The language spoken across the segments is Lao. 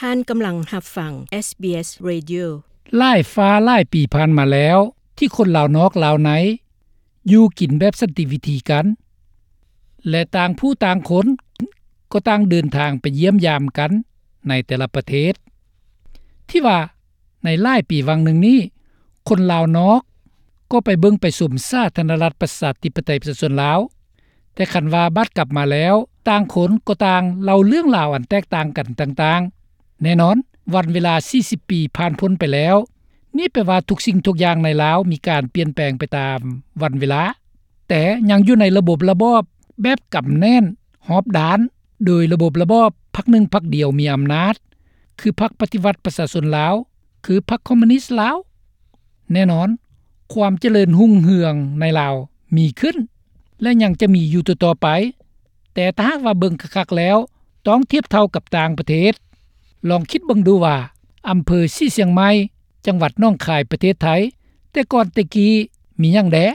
ທ່ານກຳລັງຮັບຟັງ ເອສບີເອສ Radio. ຫຼາຍຟ້າຫຼາຍປີຜ່ານມາແລ້ວ ທີ່ຄົນລາວນອກລາວໃນ ຢູ່ກິນແບບສັນຕິວິທີກັນ ແລະ ຕ່າງຜູ້ຕ່າງຄົນກໍຕ່າງເດີນທາງໄປຢ້ຽມຢາມກັນໃນແຕ່ລະປະເທດ. ທີ່ວ່າໃນຫຼາຍປີຫວ່າງໜຶ່ງນີ້ ຄົນລາວນອກກໍໄປເບິ່ງໄປຊົມສາທາລະນະລັດປະຊາທິປະໄຕປະຊາຊົນລາວ, ແຕ່ຄັນວ່າບາດກັບມາແລ້ວ ຕ່າງຄົນກໍຕ່າງເລົ່າເລື່ອງລາວອັນແຕກຕ່າງກັນຕ່າງໆ. ແນ່ນອນ, ວັນເວລາສີ່ສິບປີຜ່ານພົ້ນໄປແລ້ວ, ນີ້ແປວ່າທຸກສິ່ງທຸກຢ່າງໃນລາວມີການປ່ຽນແປງໄປຕາມວັນເວລາ, ແຕ່ຍັງຢູ່ໃນລະບົບລະບອບແບບກຳແໜ້ນຮອບດ້ານ, ໂດຍລະບົບລະບອບພັກໜຶ່ງພັກດຽວມີອຳນາດ, ຄືພັກປະຕິວັດປະຊາຊົນລາວ, ຄືພັກຄອມມູນິດລາວ. ແນ່ນອນ, ຄວາມຈະເລີນຮຸ່ງເຮືອງໃນລາວມີຂຶ້ນ ແລະ ຍັງຈະມີຢູ່ຕໍ່ໆໄປ, ແຕ່ຖ້າຫາກວ່າເບິ່ງຄັກໆແລ້ວ ຕ້ອງທຽບເທົ່າກັບຕ່າງປະເທດ. ລອງຄິດເບິ່ງດູວ່າ ອຳເພີສີຊຽງໃໝ່ ຈັງຫວັດໜອງຄາຍ ປະເທດໄທ ແຕ່ກ່ອນແຕ່ກີ້ມີຫຍັງແດ່?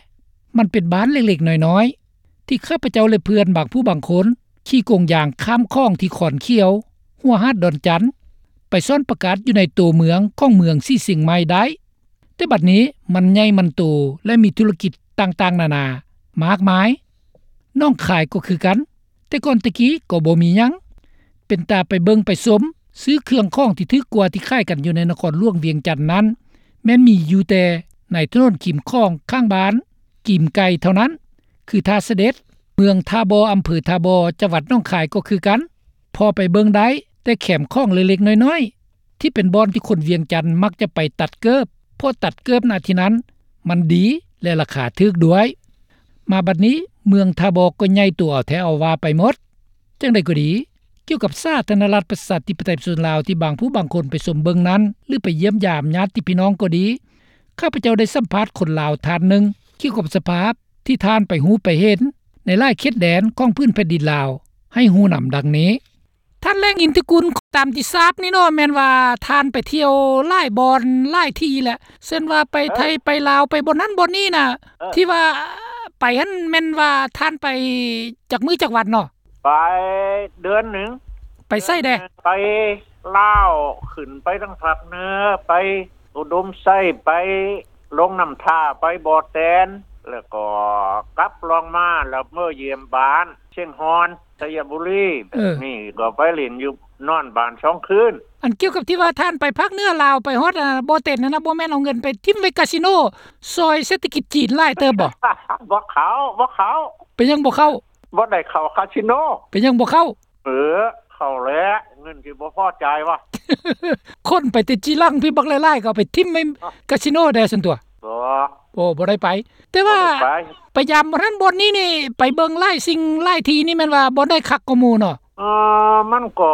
ມັນເປັນບ້ານເລັກໆນ້ອຍໆ ທີ່ຂ້າພະເຈົ້າ ແລະ ເພື່ອນບາງຜູ້ບາງຄົນ ຂີ່ກົງຢາງຂ້າມຂອງທີ່ຄອນຂຽວ ຫົວຫາດດອນຈັນ ໄປສ້ອນປະກາດຢູ່ໃນໂຕເມືອງຂອງເມືອງສີຊຽງໃໝ່ໄດ້. ແຕ່ບັດນີ້ມັນໃຫຍ່ມັນໂຕ ແລະ ມີທຸລະກິດຕ່າງໆນານາມາກມາຍ. ໜອງຄາຍກໍຄືກັນ, ແຕ່ກ່ອນແຕ່ກີ້ກໍບໍ່ມີຫຍັງ ເປັນຕາໄປເບິ່ງໄປຊົມ, ຊື້ເຄື່ອງຂອງທີ່ຖືກກວ່າທີ່ຂາຍກັນຢູ່ໃນນະຄອນຫຼວງວຽງຈັນນັ້ນ ແມ່ນມີຢູ່ແຕ່ໃນຖະໜົນຄີມຂອງຂ້າງບ້ານ ກີມໄກ່ເທົ່ານັ້ນ ຄືທ່າສະເດັດ. ເມືອງທ່າບໍ່ ອຳເພີທ່າບໍ່ ຈັງຫວັດໜອງຄາຍກໍຄືກັນ, ພໍໄປເບິ່ງໄດ້ແຕ່ແຄມຂອງເລັກໆນ້ອຍໆ ທີ່ເປັນບ່ອນທີ່ຄົນວຽງຈັນມັກຈະໄປຕັດເກີບ, ເພາະຕັດເກີບນະທີ່ນັ້ນມັນດີ ແລະ ລາຄາຖືກດ້ວຍ. ມາບັດນີ້ເມືອງທ່າບໍ່ກໍໃຫຍ່ໂຕເອົາແທ້ເອົາວ່າໄປໝົດ. ຈັ່ງໃດກໍດີ, ກ່ຽວກັບສາທາລະນະລັດປະຊາທິປະໄຕປະຊາຊົນລາວທີ່ບາງຜູ້ບາງຄົນໄປຊົມເບິ່ງນັ້ນ ຫຼື ໄປຢ້ຽມຢາມຍາດຕິພີ່ນ້ອງກໍດີ, ຂ້າພະເຈົ້າໄດ້ສຳພາດຄົນລາວທ່ານໜຶ່ງ ກ່ຽວກັບສະພາບທີ່ທ່ານໄປຮູ້ໄປເຫັນໃນຫຼາຍເຂດແດນຂອງພື້ນແຜ່ນດິນລາວ ໃຫ້ຮູ້ນຳດັ່ງນີ້. ທ່ານ ແລງ ອິນທິກຸນ, ຕາມທີ່ຊາບນີ້ເນາະ ແມ່ນວ່າທ່ານໄປທ່ຽວຫຼາຍບ່ອນຫຼາຍທີ່ແຫຼະ, ເຊັ່ນວ່າໄປໄທ ເອີ ໄປລາວ ໄປບ່ອນນັ້ນບ່ອນນີ້ນະ, ເອີ ທີ່ວ່າໄປຫັ້ນແມ່ນວ່າທ່ານໄປຈັກມື້ຈັກວັນເນາະ? ໄປເດືອນໜຶ່ງ. ໄປໃສແດ່? ໄປລາວ, ຂຶ້ນໄປທາງພາກເໜືອ, ໄປອຸດົມໄຊ, ໄປລົງນ້ຳທາ, ໄປບໍ່ແຕນ, ແລ້ວກໍກັບລົງມາ ແລ້ວເມືອຢ້ຽມບ້ານຊຽງຮ່ອນ ໄຊຍະບູລີ. ເອີ ນີ້ກໍໄປຫຼິ້ນຢູ່ ນອນບ້ານສອງຄືນ. ອັນກ່ຽວກັບທີ່ວ່າທ່ານໄປພາກເໜືອລາວ ໄປຮອດ ອາ ບໍ່ແຕນນັ້ນນະ, ບໍ່ແມ່ນເອົາເງິນໄປຖິ້ມໄວ້ກາສິໂນ ຊ່ອຍເສດຖະກິດຈີນຫຼາຍເຕີບບໍ່? ບໍ່ເຂົ້າ, ບໍ່ເຂົ້າ. ເປັນຫຍັງບໍ່ເຂົ້າ? ບໍ່ໄດ້ເຂົ້າກາສິໂນ. ເປັນຫຍັງບໍ່ເຂົ້າ? ເອີ ເຂົ້າແຫຼະ, ເງິນຊິບໍ່ພໍຈ່າຍວະ. ຄົນໄປແຕ່ຈີ່ຫຼັງພີ້ບັກຫຼາຍໆ ກໍເອົາໄປຖິ້ມໄວ້ກາສິໂນແດ່ຊັ້ນຕົວະ. ບໍ່. ໂອ້ ບໍ່ໄດ້ໄປ. ແຕ່ວ່າ ບໍ່ໄດ້ໄປ. ໄປຢາມບ່ອນນັ້ນບ່ອນນີ້ນີ້ ໄປເບິ່ງຫຼາຍສິ່ງຫຼາຍທີ່ນີ້ ແມ່ນວ່າບ່ອນໃດຄັກກວ່າໝູ່ເນາະ? ເອີ ມັນກໍ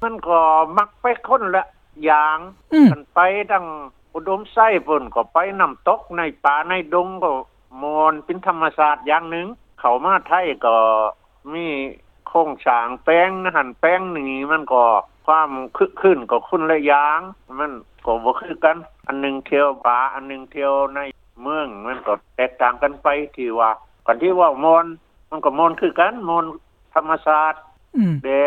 ມັນກໍມັກໄປຄົນລະຢ່າງ. ອືມ. ຄັນໄປທາງອຸດົມໄຊພຸ້ນ ກໍໄປນ້ຳຕົກໃນປ່າໃນດົງ ກໍມ່ວນເປັນທຳມະຊາດຢ່າງໜຶ່ງ. ເຂົ້າມາໄທກໍມີໂຄງສ້າງແປງຫັ້ນແປງນີ້ ມັນກໍຄວາມຄຶກຄື້ນກໍຄົນລະຢ່າງ, ມັນກໍບໍ່ຄືກັນ. ອັນໜຶ່ງທ່ຽວປ່າ, ອັນໜຶ່ງທ່ຽວໃນເມືອງ, ມັນກໍແຕກຕ່າງກັນໄປ. ທີ່ວ່າ ຄັນທີ່ເວົ້າມ່ວນ ມັນກໍມ່ວນຄືກັນ, ມ່ວນທຳມະຊາດ ອືມ ແດ່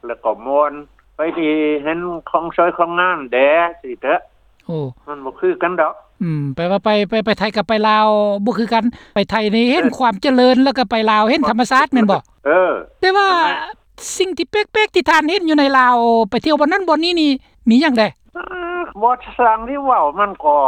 ແລ້ວກໍມ່ວນໄປທີ່ເຫັນຂອງສວຍຂອງງາມແດ່ຊີ້ເຖາະ. ໂອ້ ມັນບໍ່ຄືກັນດອກ. ອືມ ແປວ່າໄປ ໄປ ໄປໄທກັບໄປລາວບໍ່ຄືກັນ. ໄປໄທນີ້ເຫັນ ເອີ ຄວາມຈະເລີນ ແລ້ວກໍໄປລາວເຫັນທຳມະຊາດແມ່ນບໍ່? ເອີ ແຕ່ວ່າ ອັນນັ້ນ ສິ່ງທີ່ແປກໆທີ່ທ່ານເຫັນຢູ່ໃນລາວ ໄປທ່ຽວບ່ອນນັ້ນບ່ອນນີ້ນີ້ ມີຫຍັງແດ່? ເອີ ບໍ່ຊ່າງທີ່ເວົ້າ ມັນກໍ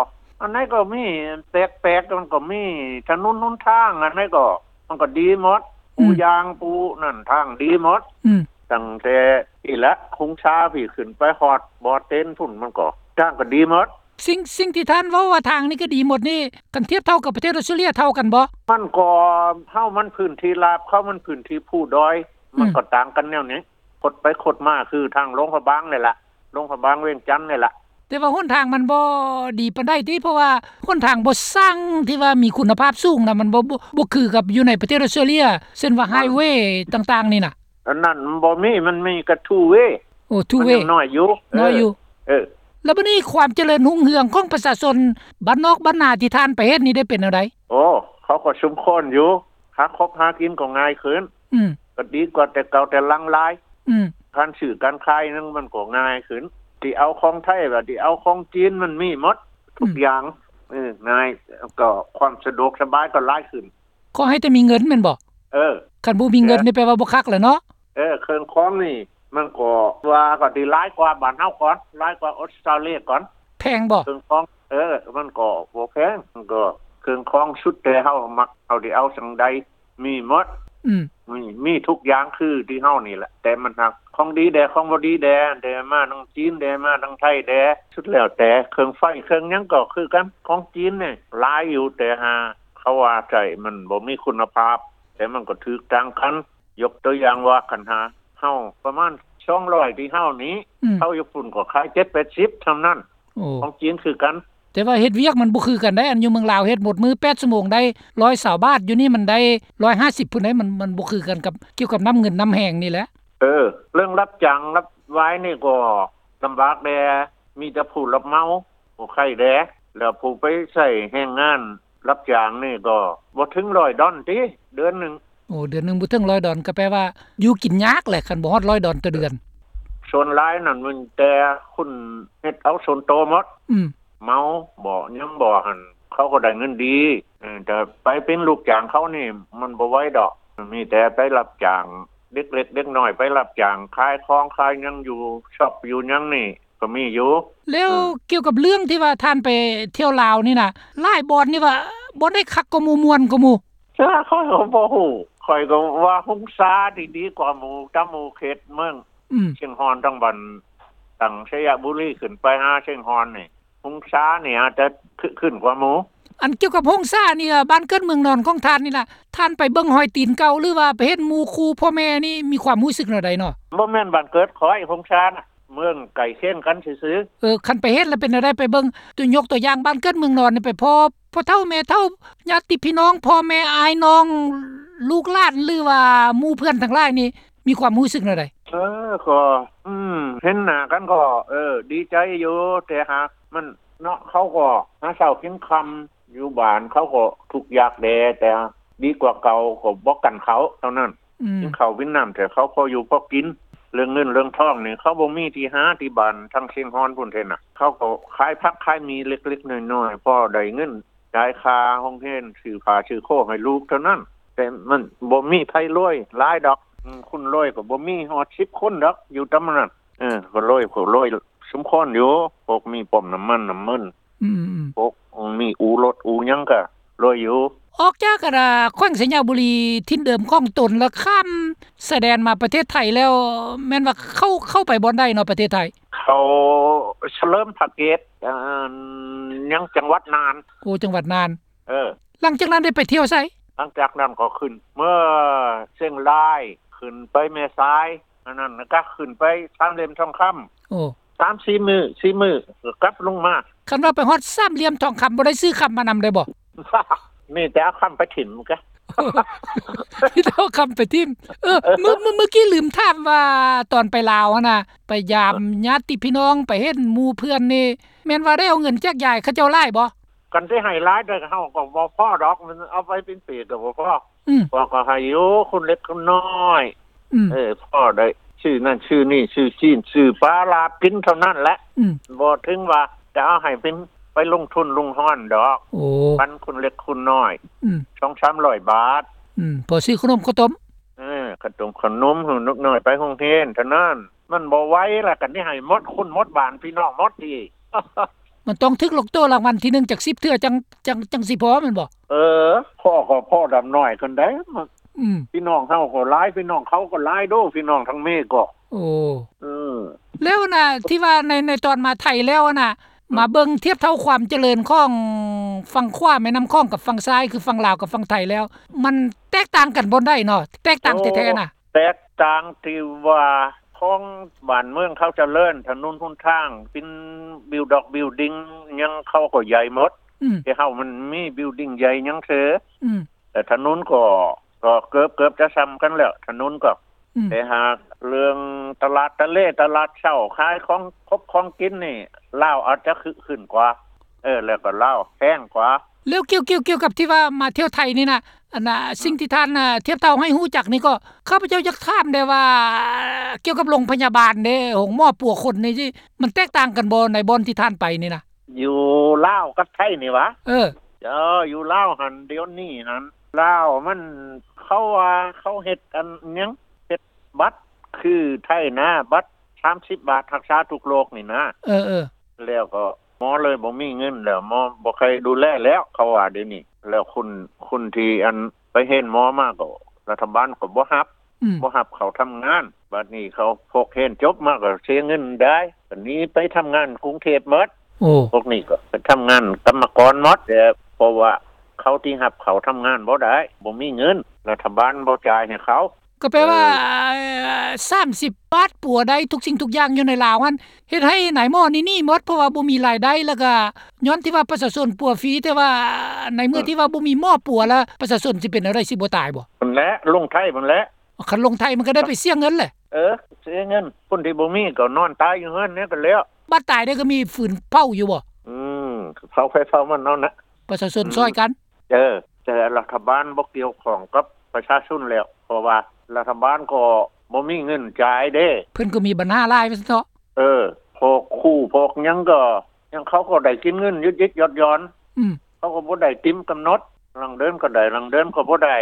ອັນໃດກໍມີ ແປກໆ ມັນກໍມີ ຖະໜົນຫົນທາງ ອັນໃດກໍ ມັນກໍດີໝົດ. ອືມ ປູຢາງປູນັ້ນ ທາງດີໝົດ. ອືມ ຕັ້ງແຕ່ພີ້ລະ ຄົງຊາພີ້ ຂຶ້ນໄປຮອດບໍ່ເຕັນພຸ້ນ ມັນກໍ ທາງກໍດີໝົດ. ສິ່ງ ສິ່ງທີ່ທ່ານເວົ້າວ່າທາງນີ້ກໍດີໝົດນີ້ ຄັນທຽບເທົ່າກັບປະເທດອອສເຕຣເລຍ ເທົ່າກັນບໍ່? ມັນກໍ ເຮົາມັນພື້ນທີ່ລາບ ເຂົາມັນພື້ນທີ່ພູດອຍ. ອືມ ມັນກໍຕ່າງກັນແນວນີ້ ຄົດໄປຄົດມາ ຄືທາງຫຼວງພະບາງນີ້ລະ ຫຼວງພະບາງວຽງຈັນນີ້ລະ. ແຕ່ວ່າຫົນທາງມັນບໍ່ດີປານໃດຕິ? ເພາະວ່າຫົນທາງບໍ່ຊ່າງທີ່ວ່າມີຄຸນນະພາບສູງນະ ມັນບໍ່ ບໍ່ ບໍ່ຄືກັບຢູ່ໃນປະເທດອອສເຕຣເລຍ ເຊັ່ນວ່າ ອ່າ ໄຮເວຕ່າງໆນີ້ນະ. ອັນນັ້ນມັນບໍ່ມີ ມັນມີແຕ່ທູເວ. ໂອ້ ທູເວ ມັນຍັງນ້ອຍຢູ່ ນ້ອຍຢູ່. ເອີ ເອີ ແລ້ວບັດນີ້ຄວາມຈະເລີນຮຸ່ງເຮືອງຂອງປະຊາຊົນບ້ານນອກບ້ານນາທີ່ທ່ານໄປເຮັດນີ້ໄດ້ເປັນແນວໃດ? ໂອ້ ເຂົາກໍສົມຄວນຢູ່ ຫາຄົບຫາກິນກໍງ່າຍຂຶ້ນ. ອືມ ກໍດີກວ່າແຕ່ເກົ່າແຕ່ຫຼັງຫຼາຍ. ອືມ ການຊື້ການຂາຍນັ້ນມັນກໍງ່າຍຂຶ້ນ. ຊິເອົາຂອງໄທ ວ່າຊິເອົາຂອງຈີນ ມັນມີໝົດທຸກ ອືມ ຢ່າງ. ເອີ ງ່າຍ ກໍຄວາມສະດວກສະບາຍກໍຫຼາຍຂຶ້ນ. ຂໍໃຫ້ແຕ່ມີເງິນແມ່ນບໍ່? ເອີ ຄັນບໍ່ມີເງິນນີ້ແປວ່າບໍ່ຄັກແຫຼະເນາະ. ເອີ ເຄື່ອງຂອງນີ້ມັນກໍວ່າກໍຊິຫຼາຍກວ່າບ້ານເຮົາກ່ອນ ຫຼາຍກວ່າອົດສະຕາເລຍກ່ອນ. ແພງບໍ່? ເຄື່ອງຂອງ ເອີ ມັນກໍບໍ່ແພງ ມັນກໍເຄື່ອງຂອງສຸດແຕ່ເຮົາມັກ ເຮົາຊິເອົາຈັ່ງໃດ ມີໝົດ. ອືມ ມີ ມີທຸກຢ່າງຄືທີ່ເຮົານີ້ແຫຼະ ແຕ່ມັນຫາກຂອງດີແດ່ ຂອງບໍ່ດີແດ່ ແດ່ມາທາງຈີນແດ່ ມາທາງໄທແດ່ ສຸດແລ້ວແຕ່. ເຄື່ອງໄຟເຄື່ອງຫຍັງກໍຄືກັນ ຂອງຈີນນີ້ຫຼາຍຢູ່ ແຕ່ຫາເຂົາວ່າໃຊ້ມັນບໍ່ມີຄຸນນະພາບ ແຕ່ມັນກໍຖືກຕ່າງກັນ. ຍົກຕົວຢ່າງວ່າ ຄັນຫາເຮົາປະມານສອງຮ້ອຍທີ່ເຮົານີ້ ອືມ ເຂົາຢູ່ພຸ້ນກໍຂາຍເຈັດແປດສິບສ່ຳນັ້ນ. ໂອ້ ຂອງຈີນຄືກັນ ແຕ່ວ່າເຮັດວຽກມັນບໍ່ຄືກັນໄດ໋. ອັນຢູ່ເມືອງລາວເຮັດໝົດມື້ແປດຊົ່ວໂມງໄດ້ຮ້ອຍຊາວບາດ ຢູ່ນີ້ມັນໄດ້ຮ້ອຍຫ້າສິບພຸ້ນໄດ໋. ມັນ ມັນບໍ່ຄືກັນກັບ ກ່ຽວກັບນ້ຳເງິນນ້ຳແຮງນີ້ແຫຼະ. ເອີ ເລື່ອງຮັບຈ້າງຮັບວາຍນີ້ກໍລຳບາກແດ່ ມີແຕ່ຜູ້ຮັບເໝົາ ຜູ້ຂາຍແດ່ ແລ້ວຜູ້ໄປໃຊ້ແຮງງານ ຮັບຈ້າງນີ້ກໍບໍ່ເຖິງຮ້ອຍດອນຕິ ເດືອນໜຶ່ງ. ໂອ້ ເດືອນໜຶ່ງບໍ່ເຖິງຮ້ອຍດອນ ກໍແປວ່າຢູ່ກິນຍາກແຫຼະ ຄັນບໍ່ຮອດຮ້ອຍດອນຕໍ່ເດືອນ. ສ່ວນຫຼາຍນັ້ນມີແຕ່ຄົນເຮັດເອົາສ່ວນໂຕໝົດ. ອືມ ເໝົາບໍ ຫຍັງບໍຫັ້ນ ເຂົາກໍໄດ້ເງິນດີ. ເອີ ແຕ່ໄປເປັນລູກຈ້າງເຂົານີ້ມັນບໍ່ໄຫວດອກ. ມີແຕ່ໄປຮັບຈ້າງ ເດັກເລັກເດັກນ້ອຍໄປຮັບຈ້າງຂາຍຂອງຂາຍຫຍັງ ຢູ່ຊັອບຢູ່ຫຍັງນີ້ ກໍມີຢູ່. ແລ້ວ ເອີ ກ່ຽວກັບເລື່ອງທີ່ວ່າທ່ານໄປທ່ຽວລາວນີ້ນະ ຫຼາຍບ່ອນນີ້ວ່າບ່ອນໃດຄັກກວ່າໝູ່ ມ່ວນກວ່າໝູ່? ເອີ ຂ້ອຍກໍບໍ່ຮູ້ ຂ້ອຍກໍວ່າຫົງສານີ້ດີກວ່າໝູ່ ຕາໝູ່ເຂດເມືອງ ອືມ ຊຽງຮ່ອນ ທາງບ້ານ ຕັ້ງໄຊຍະບູລີຂຶ້ນໄປຫາຊຽງຮ່ອນນີ້ ຫົງສານີ້ອາດຈະຄຶກຄື້ນກວ່າໝູ່. ອັນກ່ຽວກັບຫົງສານີ້ ບ້ານເກີດເມືອງນອນຂອງທ່ານນີ້ລະ ທ່ານໄປເບິ່ງຮອຍຕີນເກົ່າ ຫຼືວ່າໄປເຫັນໝູ່ຄູ່ພໍ່ແມ່ນີ້ ມີຄວາມຮູ້ສຶກແນວໃດເນາະ? ບໍ່ແມ່ນບ້ານເກີດຂ້ອຍ ຫົງສານະ ເມືອງໃກ້ຄຽງກັນຊື່ໆ. ເອີ ຄັນໄປເຫັນແລ້ວເປັນແນວໃດ? ໄປເບິ່ງ ຍົກຕົວຢ່າງບ້ານເກີດເມືອງນອນນີ້ ໄປພໍ້ພໍ່ເຖົ້າແມ່ເຖົ້າ ຍາດຕິພີ່ນ້ອງ ພໍ່ແມ່ອ້າຍນ້ອງ ລູກຫຼານ ຫຼືວ່າໝູ່ເພື່ອນທັງຫຼາຍນີ້ ມີຄວາມຮູ້ສຶກແນວໃດ? ເອີ ກໍ ອືມ ເຫັນໜ້າກັນກໍ ເອີ ດີໃຈຢູ່ ແຕ່ຫາກມັນເນາະ ເຂົາກໍຫາເຊົ້າກິນຄ່ຳ ຢູ່ບ້ານເຂົາກໍທຸກຍາກແດ່ ແຕ່ດີກວ່າເກົ່າ ກໍບໍ່ກັນເຂົ້າເທົ່ານັ້ນ. ອືມ ກິນເຂົ້າກິນນ້ຳ ແຕ່ເຂົາພໍຢູ່ພໍກິນ. ເລື່ອງເງິນເລື່ອງທອງນີ້ ເຂົາບໍ່ມີທີ່ຫາ ທີ່ບ້ານທາງຊຽງຮ່ອນພຸ້ນເດ້ນະ ເຂົາກໍຂາຍຜັກຂາຍໝີ່ເລັກໆນ້ອຍໆ ພໍໄດ້ເງິນ ຈ່າຍຄ່າໂຮງຮຽນ ຊື້ຜ້າຊື້ໂຄໃຫ້ລູກເທົ່ານັ້ນ. ແຕ່ມັນບໍ່ມີໃຜລວຍຫຼາຍດອກ. ອືມ ຄົນລວຍກໍບໍ່ມີຮອດສິບຄົນດອກ ຢູ່ຕຳນັ້ນ. ເອີ ກໍລວຍ ກໍລວຍສົມຄວນຢູ່ ພວກມີປ້ຳນ້ຳມັນນ້ຳມັນ. ອືມໆ ພວກມີອູລົດອູຫຍັງກໍລວຍຢູ່. ອອກຈາກ ອັນ ແຂວງໄຊຍະບູລີ ຖິ່ນເດີມຂອງຕົນ ແລ້ວຂ້າມຊາຍແດນມາປະເທດໄທແລ້ວ ແມ່ນວ່າເຂົ້າ ເຂົ້າໄປບ່ອນໃດເນາະ ປະເທດໄທ? ເຂົ້າສະເຫຼີມພະເກດ ອັນ ຍັງຈັງຫວັດນ່ານ. ໂອ້ ຈັງຫວັດນ່ານ. ເອີ ຫຼັງຈາກນັ້ນໄດ້ໄປທ່ຽວໃສ? ຫຼັງຈາກນັ້ນກໍຂຶ້ນເມືອຊຽງລາຍ ຂຶ້ນໄປແມ່ສາຍ ອັນນັ້ນກໍຂຶ້ນໄປສາມຫຼ່ຽມທອງຄຳ. ໂອ້ ສາມສີ່ມື້ ສີ່ມື້ກໍກັບລົງມາ. ຄັນວ່າໄປຮອດສາມຫຼ່ຽມທອງຄຳ ບໍ່ໄດ້ຊື້ຄຳມານຳໄດ້ບໍ່? ມີແຕ່ເອົາຄຳໄປຖິ້ມກະ ມີແຕ່ເອົາຄຳໄປຖິ້ມ. ເອີ ເອີ ມື້ ມື້ ມື້ກີ້ລືມຖາມວ່າ ຕອນໄປລາວຫັ້ນນະ ໄປຢາມຍາດຕິພີ່ນ້ອງ ໄປເຫັນໝູ່ເພື່ອນນີ້ ແມ່ນວ່າໄດ້ເອົາເງິນແຈກຢາຍເຂົາເຈົ້າຫຼາຍບໍ່? ຄັນຊິໃຫ້ຫຼາຍໄດ້ ເຮົາກໍບໍ່ພໍດອກ ມັນເອົາໄປເປັນປີກໍບໍ່ພໍ. ອືມ ພວກກໍໃຫ້ຢູ່ ຄົນເລັກຄົນນ້ອຍ. ອືມ ເອີ ພໍໄດ້ຊື້ນັ້ນຊື້ນີ້ ຊື້ຊີ້ນຊື້ປາລາບກິນເທົ່ານັ້ນແຫຼະ. ອືມ ບໍ່ເຖິງວ່າຈະເອົາໃຫ້ເປັນໄປລົງທຶນລຸງຮອນດອກ. ໂອ້ ປັນຄົນເລັກຄົນນ້ອຍ. ອືມ ສອງສາມຮ້ອຍບາດ. ອືມ ພໍຊື້ຂະໜົມເຂົ້າຕົ້ມ. ເອີ ຂະໜົມ ຂະໜົມໃຫ້ເດັກນ້ອຍໄປໂຮງຮຽນເທົ່ານັ້ນ. ມັນບໍ່ໄຫວລະ ຄັນຊິໃຫ້ໝົດຄົນໝົດບ້ານ ພີ່ນ້ອງໝົດອີກ. ມັນຕ້ອງຖືກລອດໂຕລາງວັນທີໜຶ່ງຈັກສິບເທື່ອ ຈັ່ງ ຈັ່ງ ຈັ່ງຊິພໍແມ່ນບໍ່? ເອີ ພໍກໍພໍດຳນ້ອຍຄົນໃດ. ອືມ ພີ່ນ້ອງເຮົາກໍຫຼາຍ ພີ່ນ້ອງເຂົາກໍຫຼາຍໂດ ພີ່ນ້ອງທາງເມກໍ. ໂອ້ ເອີ ແລ້ວນະ ທີ່ວ່າໃນ ໃນຕອນມາໄທແລ້ວນະ ມາເບິ່ງທຽບເທົ່າຄວາມຈະເລີນຂອງຝັ່ງຂວາແມ່ນ້ຳຂອງກັບຝັ່ງຊ້າຍ ຄືຝັ່ງລາວກັບຝັ່ງໄທແລ້ວ ມັນແຕກຕ່າງກັນບ່ອນໃດເນາະ? ແຕກຕ່າງແທ້ໆນະ. ໂອ້ ແຕກຕ່າງທີ່ວ່າຂອງບ້ານເມືອງເຂົາຈະເລີນ ຖະໜົນຫົນທາງ ເປັນບິວດັອກບິວດິງຫຍັງ ເຂົາກໍໃຫຍ່ໝົດ. ອືມ ແຕ່ເຮົາມັນມີບິວດິງໃຫຍ່ຫຍັງເທື່ອ. ອືມ ແຕ່ຖະໜົນກໍ ກໍເກືອບ ເກືອບຈະສ່ຳກັນແລ້ວ ຖະໜົນກໍ. ອືມ ແຕ່ຫາກເລື່ອງຕະຫຼາດຕະເລ ຕະຫຼາດເຊົ້າ ຂາຍຂອງຄົບຂອງກິນນີ້ ລາວອາດຈະຄຶກຄື້ນກວ່າ. ເອີ ແລ້ວກໍລາວແພງກວ່າ. ແລ້ວກ່ຽວ ກ່ຽວ ກ່ຽວກັບທີ່ວ່າມາທ່ຽວໄທນີ້ນະ ອັນນ່າ ອືມ ສິ່ງທີ່ທ່ານ ອາ ທຽບເທົ່າໃຫ້ຮູ້ຈັກນີ້ກໍ ຂ້າພະເຈົ້າຢາກຖາມແດ່ວ່າ ກ່ຽວກັບໂຮງພະຍາບານເດ້ ໂຮງໝໍປົວຄົນນີ້ ມັນແຕກຕ່າງກັນບໍ່ ໃນບ່ອນທີ່ທ່ານໄປນີ້ນະ? ຢູ່ລາວກັບໄທນີ້ຫວາ? ເອີ ເຈົ້າ ຢູ່ລາວຫັ້ນ ດຽວນີ້ຫັ້ນ ລາວມັນ ເຂົາວ່າເຂົາເຮັດອັນຫຍັງ ເຮັດບັດ ຄືໄທນະ ບັດສາມສິບບາດ ຮັກສາທຸກໂລກນີ້ນະ. ເອີໆ ແລ້ວກໍໝໍເລີຍບໍ່ມີເງິນແລ້ວ ໝໍບໍ່ໃຄ່ດູແລແລ້ວ ເຂົາວ່າດຽວນີ້. ແລ້ວຄົນ ຄົນທີ່ອັນໄປຮຽນໝໍມາກໍ ລັດຖະບານກໍບໍ່ຮັບ ອືມ ບໍ່ຮັບເຂົ້າທຳງານ. ບັດນີ້ເຂົາ ພວກຮຽນຈົບມາກໍເສຍເງິນໄດ້ ກໍໜີໄປທຳງານກຸງເທບໝົດ. ໂອ້ ພວກນີ້ກໍໄປທຳງານກຳມະກອນໝົດ ແຕ່ເພາະວ່າເຂົາທີ່ຮັບເຂົ້າທຳງານບໍ່ໄດ້ ບໍ່ມີເງິນ ລັດຖະບານບໍ່ຈ່າຍໃຫ້ເຂົາ. ກໍແປວ່າ ເອີ ສາມສິບບາດປົວໄດ້ທຸກສິ່ງທຸກຢ່າງຢູ່ໃນລາວຫັ້ນ ເຮັດໃຫ້ນາຍໝໍນີ້ໜີໝົດ ເພາະວ່າບໍ່ມີລາຍໄດ້ ແລ້ວກໍຍ້ອນທີ່ວ່າປະຊາຊົນປົວຟຣີ ແຕ່ວ່າໃນເມື່ອ ເອີ ທີ່ວ່າບໍ່ມີໝໍປົວແລ້ວ ປະຊາຊົນຊິເປັນແນວໃດ ຊິບໍ່ຕາຍບໍ່? ຫັ້ນແຫຼະ ລົງໄທພຸ້ນແຫຼະ. ຄັນລົງໄທມັນກໍໄດ້ໄປເສຍເງິນແຫຼະ. ເອີ ເສຍເງິນ ຄົນທີ່ບໍ່ມີກໍນອນຕາຍຢູ່ເຮືອນນີ້ກໍແລ້ວ. ບາດຕາຍໄດ້ກໍມີຟືນເຜົາຢູ່ບໍ່? ອືມ ເຜົາໃຜເຜົາມັນເອົານະ ປະຊາຊົນ ອືມ ຊ່ອຍກັນ. ເອີ ແຕ່ລັດຖະບານບໍ່ກ່ຽວຂ້ອງກັບປະຊາຊົນແລ້ວ ເພາະວ່າລັດຖະບານກໍບໍ່ມີເງິນຈ່າຍເດ້ ເພິ່ນກໍມີບັນຫາຫຼາຍວ່າຊັ້ນເຖາະ. ເອີ ພວກຄູພວກຫຍັງກໍ ຫຍັງເຂົາກໍໄດ້ກິນເງິນຢຸດໆຢ່ອນໆ ອືມ ເຂົາກໍບໍ່ໄດ້ຕາມກຳນົດ ລາງເດືອນກໍໄດ້ ລາງເດືອນກໍບໍ່ໄດ້.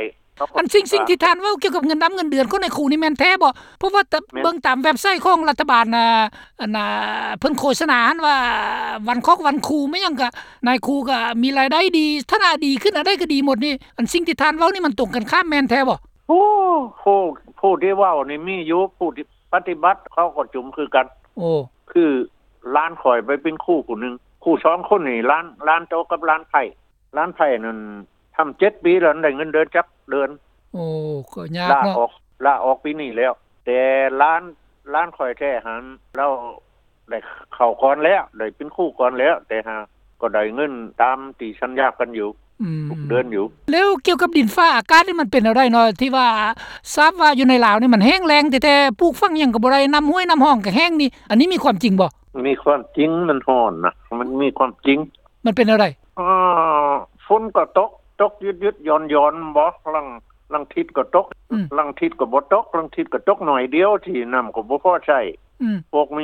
ອັນສິ່ງ ສິ່ງທີ່ທ່ານເວົ້າກ່ຽວກັບເງິນດຳເງິນເດືອນຂອງນາຍຄູນີ້ແມ່ນແທ້ບໍ່? ເພາະວ່າ ແມ່ນ ເບິ່ງຕາມເວັບໄຊຂອງລັດຖະບານ ອັນ ເພິ່ນໂຄສະນາຫັ້ນວ່າ ວັນຄອກວັນຄູ ແມ່ນຫຍັງກະ ນາຍຄູກະມີລາຍໄດ້ດີ ຖານະດີຂຶ້ນ ອັນໃດກໍດີໝົດນີ້. ອັນສິ່ງທີ່ທ່ານເວົ້ານີ້ມັນຕົງກັນຂ້າມແມ່ນແທ້ບໍ່? ໂອ້ ຜູ້ ຜູ້ທີ່ເວົ້ານີ້ມີຢູ່ ຜູ້ທີ່ປະຕິບັດເຂົາກໍຈຸມຄືກັນ. ໂອ້ ຄືຫຼານຂ້ອຍໄປເປັນຄູຜູ້ໜຶ່ງ ຄູສອງຄົນນີ້ ຫຼານ ຫຼານໂຕກັບຫຼານໃພ້ ຫຼານໃພ້ນັ້ນທຳເຈັດປີແລ້ວ ໄດ້ເງິນເດືອນຈັກເດືອນ. ໂອ້ ກໍຍາກເນາະ ລາອອກ ລາອອກປີນີ້ແລ້ວ. ແຕ່ຫຼານ ຫຼານຂ້ອຍແທ້ຫັ້ນ ລາວໄດ້ເຂົ້າກ່ອນແລ້ວ ໄດ້ເປັນຄູກ່ອນແລ້ວ ແຕ່ຫາກໍໄດ້ເງິນຕາມທີ່ສັນຍາກັນຢູ່ ອືມ ທຸກເດືອນຢູ່. ແລ້ວກ່ຽວກັບດິນຟ້າອາກາດນີ້ມັນເປັນແນວໃດເນາະ ທີ່ວ່າຊາບວ່າຢູ່ໃນລາວນີ້ມັນແຫ້ງແລ້ງແທ້ໆ ປູກຝັງຫຍັງກໍບໍ່ໄດ້ ນ້ຳຫ້ວຍນ້ຳຮ່ອງກໍແຫ້ງນີ້ ອັນນີ້ມີຄວາມຈິງບໍ່? ມີຄວາມຈິງ ມັນຮ້ອນນະ ມັນມີຄວາມຈິງ. ມັນເປັນແນວໃດ? ເອີ ຝົນກໍຕົກ ຕົກຢຸດໆຢ່ອນໆບໍ ລາງ ລາງທິດກໍຕົກ ອືມ ລາງທິດກໍບໍ່ຕົກ ລາງທິດກໍຕົກໜ້ອຍດຽວ ທີ່ນ້ຳກໍບໍ່ພໍໃຊ້. ອືມ ພວກມ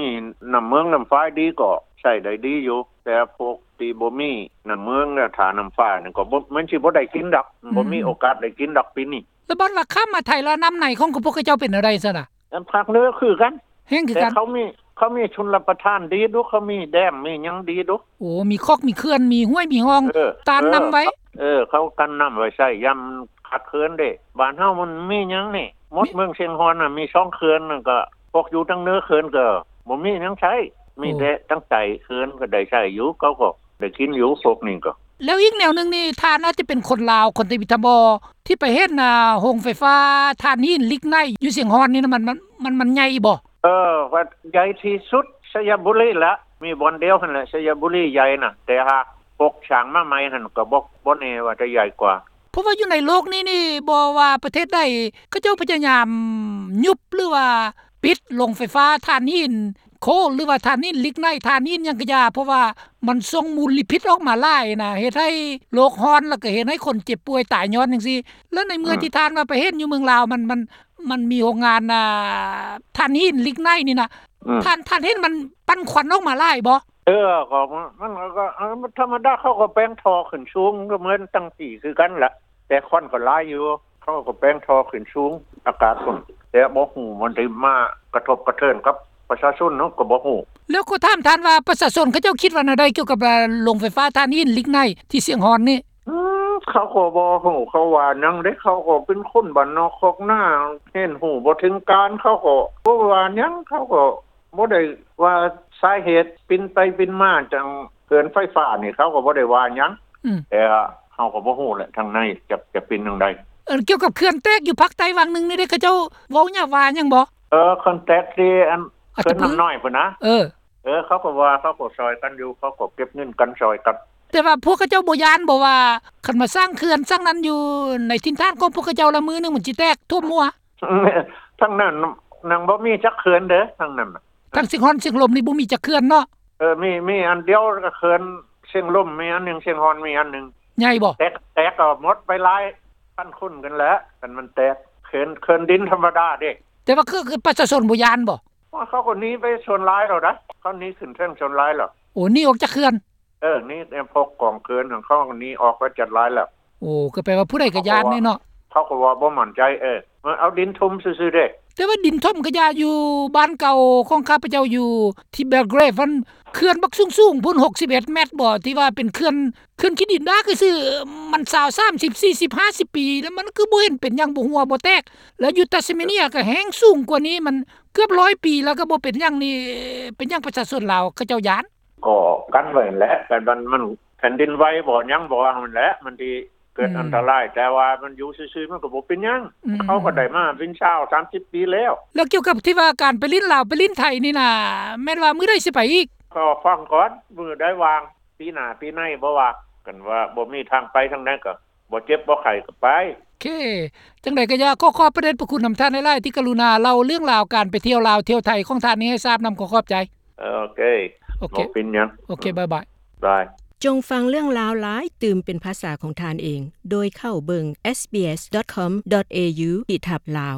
ີນ້ຳເມືອງນ້ຳຝາຍດີກໍໃຊ້ໄດ້ດີຢູ່ ແຕ່ພວກທີ່ບໍ່ມີນ້ຳເມືອງ ແລະ ຖ້ານ້ຳຝາຍນັ້ນກໍບໍ່ ມັນຊິບໍ່ໄດ້ກິນດອກ ອືມ ບໍ່ມີໂອກາດໄດ້ກິນດອກປີນີ້. ແລ້ວບັດວ່າຂ້າມມາໄທແລ້ວ ນ້ຳໃນຂອງພວກເຂົາເຈົ້າເປັນແນວໃດຊັ້ນນະ? ອັນພາກເໜືອຄືກັນ ແຫ້ງຄືກັນ ແຕ່ເຂົາມີ ເຂົາມີຊົນລະປະທານດີດຸ ເຂົາມີແດມມີຫຍັງດີດຸ. ໂອ້ ມີຄອກມີເຂື່ອນ ມີຫ້ວຍມີຮ່ອງ ເອີ ຕັນນ້ຳໄວ້ ເອີ ເຂົາກັນນ້ຳໄວ້ໃຊ້ຍາມຂາດເຂີນເດ້. ບ້ານເຮົາມັນມີຫຍັງນີ້ ໝົດເມືອງຊຽງຮ່ອນນະ ມີສອງເຂື່ອນ ແລ້ວກໍພວກຢູ່ທາງເໜືອເຂື່ອນກໍບໍ່ມີຫຍັງໃຊ້ ມີແຕ່ທາງໃຕ້ເຂື່ອນກໍໄດ້ໃຊ້ຢູ່ ເຂົາກໍໄດ້ກິນຢູ່ ພວກນີ້ກໍ. ແລ້ວອີກແນວໜຶ່ງນີ້ ທ່ານອາດຈະເປັນຄົນລາວ ຄົນທຳອິດທຳບໍ່ ທີ່ໄປເຫັນ ອ່າ ໂຮງໄຟຟ້າຖ່ານຫີນລິກໄນຢູ່ຊຽງຮ່ອນນີ້ນະ ມັນ ມັນ ມັນ ມັນໃຫຍ່ບໍ່? ເອີ ວ່າໃຫຍ່ທີ່ສຸດໄຊຍະບູລີລະ ມີບ່ອນດຽວຫັ້ນແຫຼະ ໄຊຍະບູລີໃຫຍ່ນະ ແຕ່ຫາກປົກສ້າງມາໃໝ່ຫັ້ນກໍບໍ່ ບໍ່ແນ່ວ່າຈະໃຫຍ່ກວ່າ. ເພາະວ່າຢູ່ໃນໂລກນີ້ນີ້ ບໍ່ວ່າປະເທດໃດ ເຂົາເຈົ້າພະຍາຍາມຍຸບ ຫຼືວ່າປິດໂຮງໄຟຟ້າຖ່ານຫີນ ໂຄລ ຫຼືວ່າຖ່ານຫີນລິກໄນ ຖ່ານຫີນຫຍັງກະຢ່າ ເພາະວ່າມັນສົ່ງມົນລະພິດອອກມາຫຼາຍນະ ເຮັດໃຫ້ໂລກຮ້ອນ ແລ້ວກະເຮັດໃຫ້ຄົນເຈັບປ່ວຍຕາຍຍ້ອນຈັ່ງຊີ້. ແລ້ວໃນເມື່ອ ອືມ ທີ່ທ່ານວ່າໄປເຫັນຢູ່ເມືອງລາວ ມັນ ມັນ ມັນມີໂຮງງານ ອ່າ ຖ່ານຫີນລິກໄນນີ້ນະ ອືມ ທ່ານ ທ່ານເຫັນມັນປັ່ນຄວັນອອກມາຫຼາຍບໍ່? ເອີ ກໍມັນ ມັນກໍ ເອີ ມັນທຳມະດາ ເຂົາກໍແປງທໍ່ຂຶ້ນສູງ ກໍເໝືອນຕັ້ງປີຄືກັນລະ ແຕ່ຄວັນກໍຫຼາຍຢູ່. ເຂົາກໍແປງທໍ່ຂຶ້ນສູງອາກາດພຸ້ນ ແຕ່ບໍ່ຮູ້ມັນໄດ້ມາກະທົບກະເທີນກັບປະຊາຊົນເນາະ ກໍບໍ່ຮູ້. ແລ້ວກໍຖາມທ່ານວ່າ ປະຊາຊົນເຂົາເຈົ້າຄິດວ່າແນວໃດກ່ຽວກັບ ເອີ ໂຮງໄຟຟ້າຖ່ານຫີນລິກໄນທີ່ຊຽງຮ່ອນນີ້? ອືມ ເຂົາກໍບໍ່ຮູ້ເຂົາວ່າຫຍັງເດ້ ເຂົາກໍເປັນຄົນບ້ານນອກຄອກນາ ຮຽນຮູ້ບໍ່ເຖິງການ ເຂົາກໍບໍ່ວ່າຫຍັງ ເຂົາກໍ ບໍ່ໄດ້ວ່າສາເຫດປິ່ນໄປປິ່ນມາຈັ່ງເຂື່ອນໄຟຟ້ານີ້ ເຂົາກໍບໍ່ໄດ້ວ່າຫຍັງ ອືມ ແຕ່ເຮົາກໍບໍ່ຮູ້ແຫຼະ ທາງໃນຈະ ຈະເປັນຈັ່ງໃດ. ເອີ ກ່ຽວກັບເຂື່ອນແຕກຢູ່ພາກໃຕ້ຫວ່າງໜຶ່ງນີ້ເດ້ ເຂົາເຈົ້າເວົ້າຫຍັງວ່າຫຍັງບໍ່? ເອີ ເຂື່ອນແຕກທີ່ອັນ ອັດຕະປື ເຂື່ອນນ້ຳນ້ອຍພຸ້ນນະ ເອີ ເອີ ເຂົາກໍວ່າ ເຂົາກໍຊ່ອຍກັນຢູ່ ເຂົາກໍເກັບເງິນກັນຊ່ອຍກັນ. ແຕ່ວ່າພວກເຂົາເຈົ້າບໍ່ຢ້ານບໍ່ວ່າ ຄັນມາສ້າງເຂື່ອນສ້າງນັ້ນຢູ່ໃນຖິ່ນຖານຂອງພວກເຂົາເຈົ້າລະ ມື້ໜຶ່ງມັນຊິແຕກຖ້ວມຫົວ? ທາງນັ້ນຍັງບໍ່ມີຈັກເຂື່ອນເດີ ທາງນັ້ນນະ ທາງຊຽງຮ່ອນຊຽງລົມນີ້ບໍ່ມີຈັກເຂື່ອນເນາະ? ເອີ ມີ ມີອັນດຽວ ກໍເຂື່ອນຊຽງລົມມີອັນໜຶ່ງ ຊຽງຮ່ອນມີອັນໜຶ່ງ. ໃຫຍ່ບໍ່? ແຕກ ແຕກກໍໝົດໄປຫຼາຍ ຂັ້ນຂຸ້ນກັນແຫຼະ ຄັນມັນແຕກ ເຂື່ອນ ເຂື່ອນດິນທຳມະດາເດ້. ແຕ່ວ່າຄື ຄືປະຊາຊົນບໍ່ຢ້ານບໍ່? ວ່າເຂົາກໍໜີໄປສ່ວນຫຼາຍແລ້ວໃດ໋ ເຂົາໜີຂຶ້ນເທິງສ່ວນຫຼາຍແລ້ວ. ໂອ້ ໜີອອກຈາກເຂື່ອນ? ເອີ ໜີ ພວກກອງເຂື່ອນຂອງເຂົາໜີອອກໄປຈັດຫຼາຍແລ້ວ. ໂອ້ ກໍແປວ່າຜູ້ໃດກໍຢ້ານເດ້ເນາະ. ເຂົາກໍວ່າບໍ່ໝັ້ນໃຈ ເອີ ເອົາດິນຖົມຊື່ໆເດ້. ແຕ່ວ່າດິນຖົມກໍຢ່າ ຢູ່ບ້ານເກົ່າຂອງຂ້າພະເຈົ້າຢູ່ທີ່ Belgrade ຫັ້ນ ເຂື່ອນບັກສູງໆພຸ້ນ ຫົກສິບເອັດແມັດບໍ່ ທີ່ວ່າເປັນເຂື່ອນ ເຂື່ອນຂີ້ດິນດາກຊື່ໆ ມັນຊາວ ສາມສິບ ສີ່ສິບ ຫ້າສິບປີ ແລ້ວມັນຄືບໍ່ເຫັນເປັນຫຍັງ ບໍ່ຮົ່ວບໍ່ແຕກ. ແລ້ວຢູ່ Tasmania ກໍແຮງສູງກວ່ານີ້ ມັນເກືອບຮ້ອຍປີ ແລ້ວກໍບໍ່ເປັນຫຍັງນີ້ ເປັນຫຍັງປະຊາຊົນລາວເຂົາເຈົ້າຢ້ານ? ກໍກັນໄວ້ຫັ້ນແຫຼະ ແຕ່ມັນ ມັນແຜ່ນດິນໄຫວບໍ່ ຫຍັງບໍ່ຫັ້ນແຫຼະ ມັນຊິເກີດອັນຕະລາຍ ແຕ່ວ່າມັນຢູ່ຊື່ໆ ມັນກໍບໍ່ເປັນຫຍັງ ເຂົາກໍໄດ້ມາເປັນຊາວ ສາມສິບປີແລ້ວ. ແລ້ວກ່ຽວກັບທີ່ວ່າການໄປຫຼິ້ນລາວ ໄປຫຼິ້ນໄທນີ້ນະ ແມ່ນວ່າມື້ໃດຊິໄປອີກ? ກໍຟັງກ່ອນ ມື້ໃດວ່າງ ປີໜ້າປີໃນບໍ່ວ່າ ຄັນວ່າບໍ່ມີທາງໄປທາງໃດກໍບໍ່ເຈັບບໍ່ໄຂ້ກໍໄປ. ໂອເຄ ຈັ່ງໃດກໍຢ່າ ຂໍຂອບພະເດດພະຄຸນນຳທ່ານຫຼາຍໆ ທີ່ກະລຸນາເລົ່າເລື່ອງລາວການໄປທ່ຽວລາວທ່ຽວໄທຂອງທ່ານນີ້ໃຫ້ຊາບນຳ. ຂໍຂອບໃຈ. ເອີ ໂອເຄ ໂອເຄ ບໍ່ເປັນຫຍັງ. ໂອເຄ ບາຍບາຍ. ບາຍ. ຈົ່ງຟັງເລື່ອງລາວຫຼາຍຕື່ມເປັນພາສາຂອງທ່ານເອງ ໂດຍເຂົ້າເບິ່ງ sbs.com.au/lao